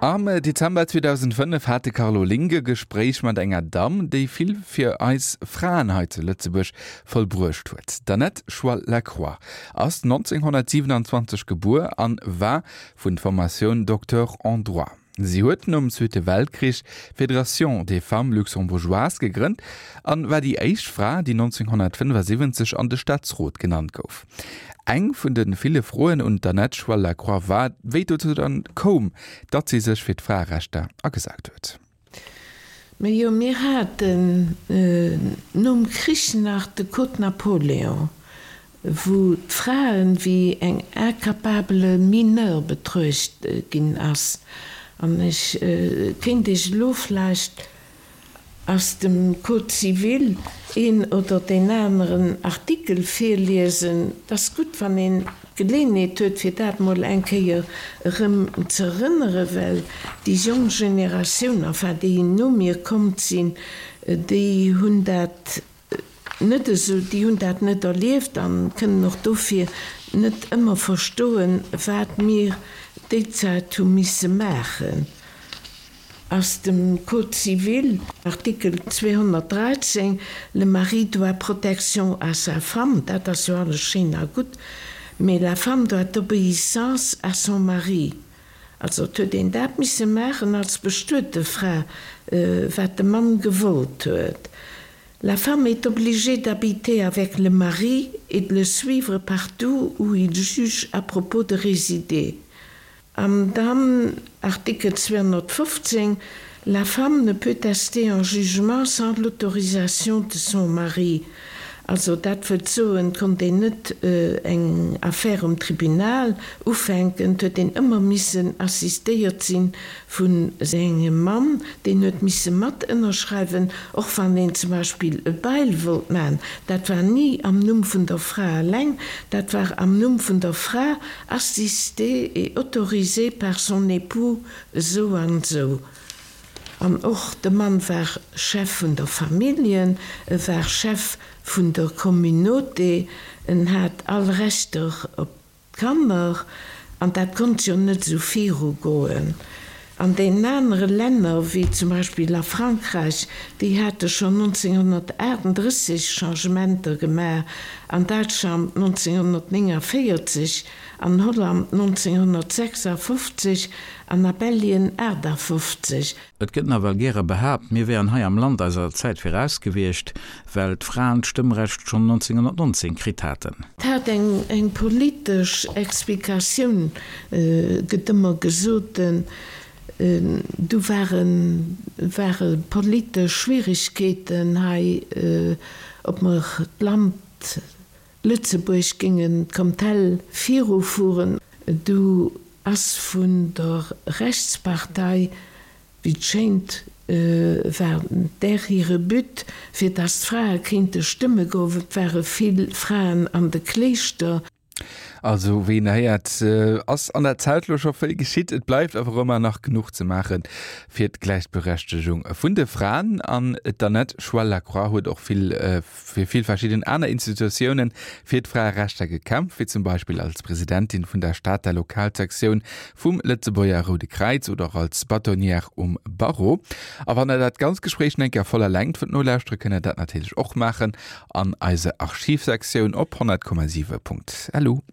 Am Dezember 2005 hat de Carlo Link e Gespréich mat enger Damm, déi vill fir eis Fraen hei zu Lëtzebuerg vollbruecht huet. D'Annette Schwall-Lacroix ass 1927 gebuer an war vun Formatioun Docteur en droit. Si huet nom Zweete Weltkrich d'Fédération des Femmes Luxembourgeoises gegrënnt an war déi éischt Fra, déi 1975 an de Staatsrot genannt gouf. Eng vun de ville Froen un d'Annette Schwall-Lacroix war, wéi et dozou dann koum, datt si sech fir d'Fraerechter agesat huet. Majo, mir haten nom Krich nach de Code Napoléon, wou d'Fraen wéi eng incapable mineure betruecht ginn ass. An ech kéint Iech elo vläicht aus dem Code civil een oder deen aneren Artikel virliesen. Et ass gutt, wann een d'Geleeënheet huet, fir dat mol eng Kéier erëm ze erënneren, well déi jonk Generatioun, enfin déi no mir kommt sinn, déi hunn dat net esou, déi hunn dat net erlieft an kënnen och dofir net ëmmer verstoen, wat mir déi Zäit hu misse maachen. Aus dem Code civil, Artikel 213, Le mari doit protection à sa femme, dat ass jo alles schéin a gutt, mee la femme doit obéissance à son mari. Also et huet een dat misse maachen als bestuete Fra, wat de Mann gewollt huet. La femme est obligée d'habiter avec le mari et de le suivre partout où il juge à propos de résider. An dann Artikel 215, La femme ne peut tester en jugement sans l'autorisation de son mari. Also dat wëllt soen, et konnt een net eng Affär um Tribunal ufänken, et huet een ëmmer missen assistéiert si vu sengem Mann, deen huet misse mat ënnerschreiwen, och wann een zum Beispill e Bail wollt maachen. Dat war ni am Numm vun der Fra eleng, dat war am Numm vun der Fra, assistée et autorisée par son époux esou an esou. An och de Mann war Chef vun der Familljen, e war Chef vun der Communauté, en hat all Rechter op d'Kanner, an dat konnt jo net esou virugoen. An deenen anere Länner, wéi zum Beispill a Frankräich, déi hate schonn 1938 Changementer gemaach, an Däitschland 1949, an Holland 1956 an a Belgien 58. Et gëtt nawell gäre behaapt, mir wären hei am Land eiser Zäit viraus gewiescht, well d'Fraen d'Stëmmrecht schonn 1919 kritt haten. Et hat eng politesch Explikatioun, gëtt ëmmer gesot. Du ware ware politesch Schwieregkeeten hei, ob mer d'Land Lëtzebuerg géingen d'Kamtell virufueren. Du ass vun der Rechtspartei, wéi et schéint, war där hire But, fir datt d'Frae kéinte stëmme goen. Et ware vill Fraen an de Kléischter. Also wéi een héiert, ass an der Zäit lo scho vill geschitt. Et bleift awer ëmmer nach genuch ze maache fir d'Gläichberechtegung vun de Fraen. An d'Annette Schwell-Lacroix huet och vill fir vill verschidden aner Institutiounen fir d'Fraerechter gekämpft, wéi zum Beispill als Presidentin vun der Stater Lokalsektioun vum Lëtzebuerger Roude Kräiz oder och als Bâtonnière um Barreau. A wann der dat ganz Gespréich nach eng Kéier voller Längt wëllt nolauschtere, kënnt der dat natierlech och maachen an eiser Archivsektioun op 100,7.lu.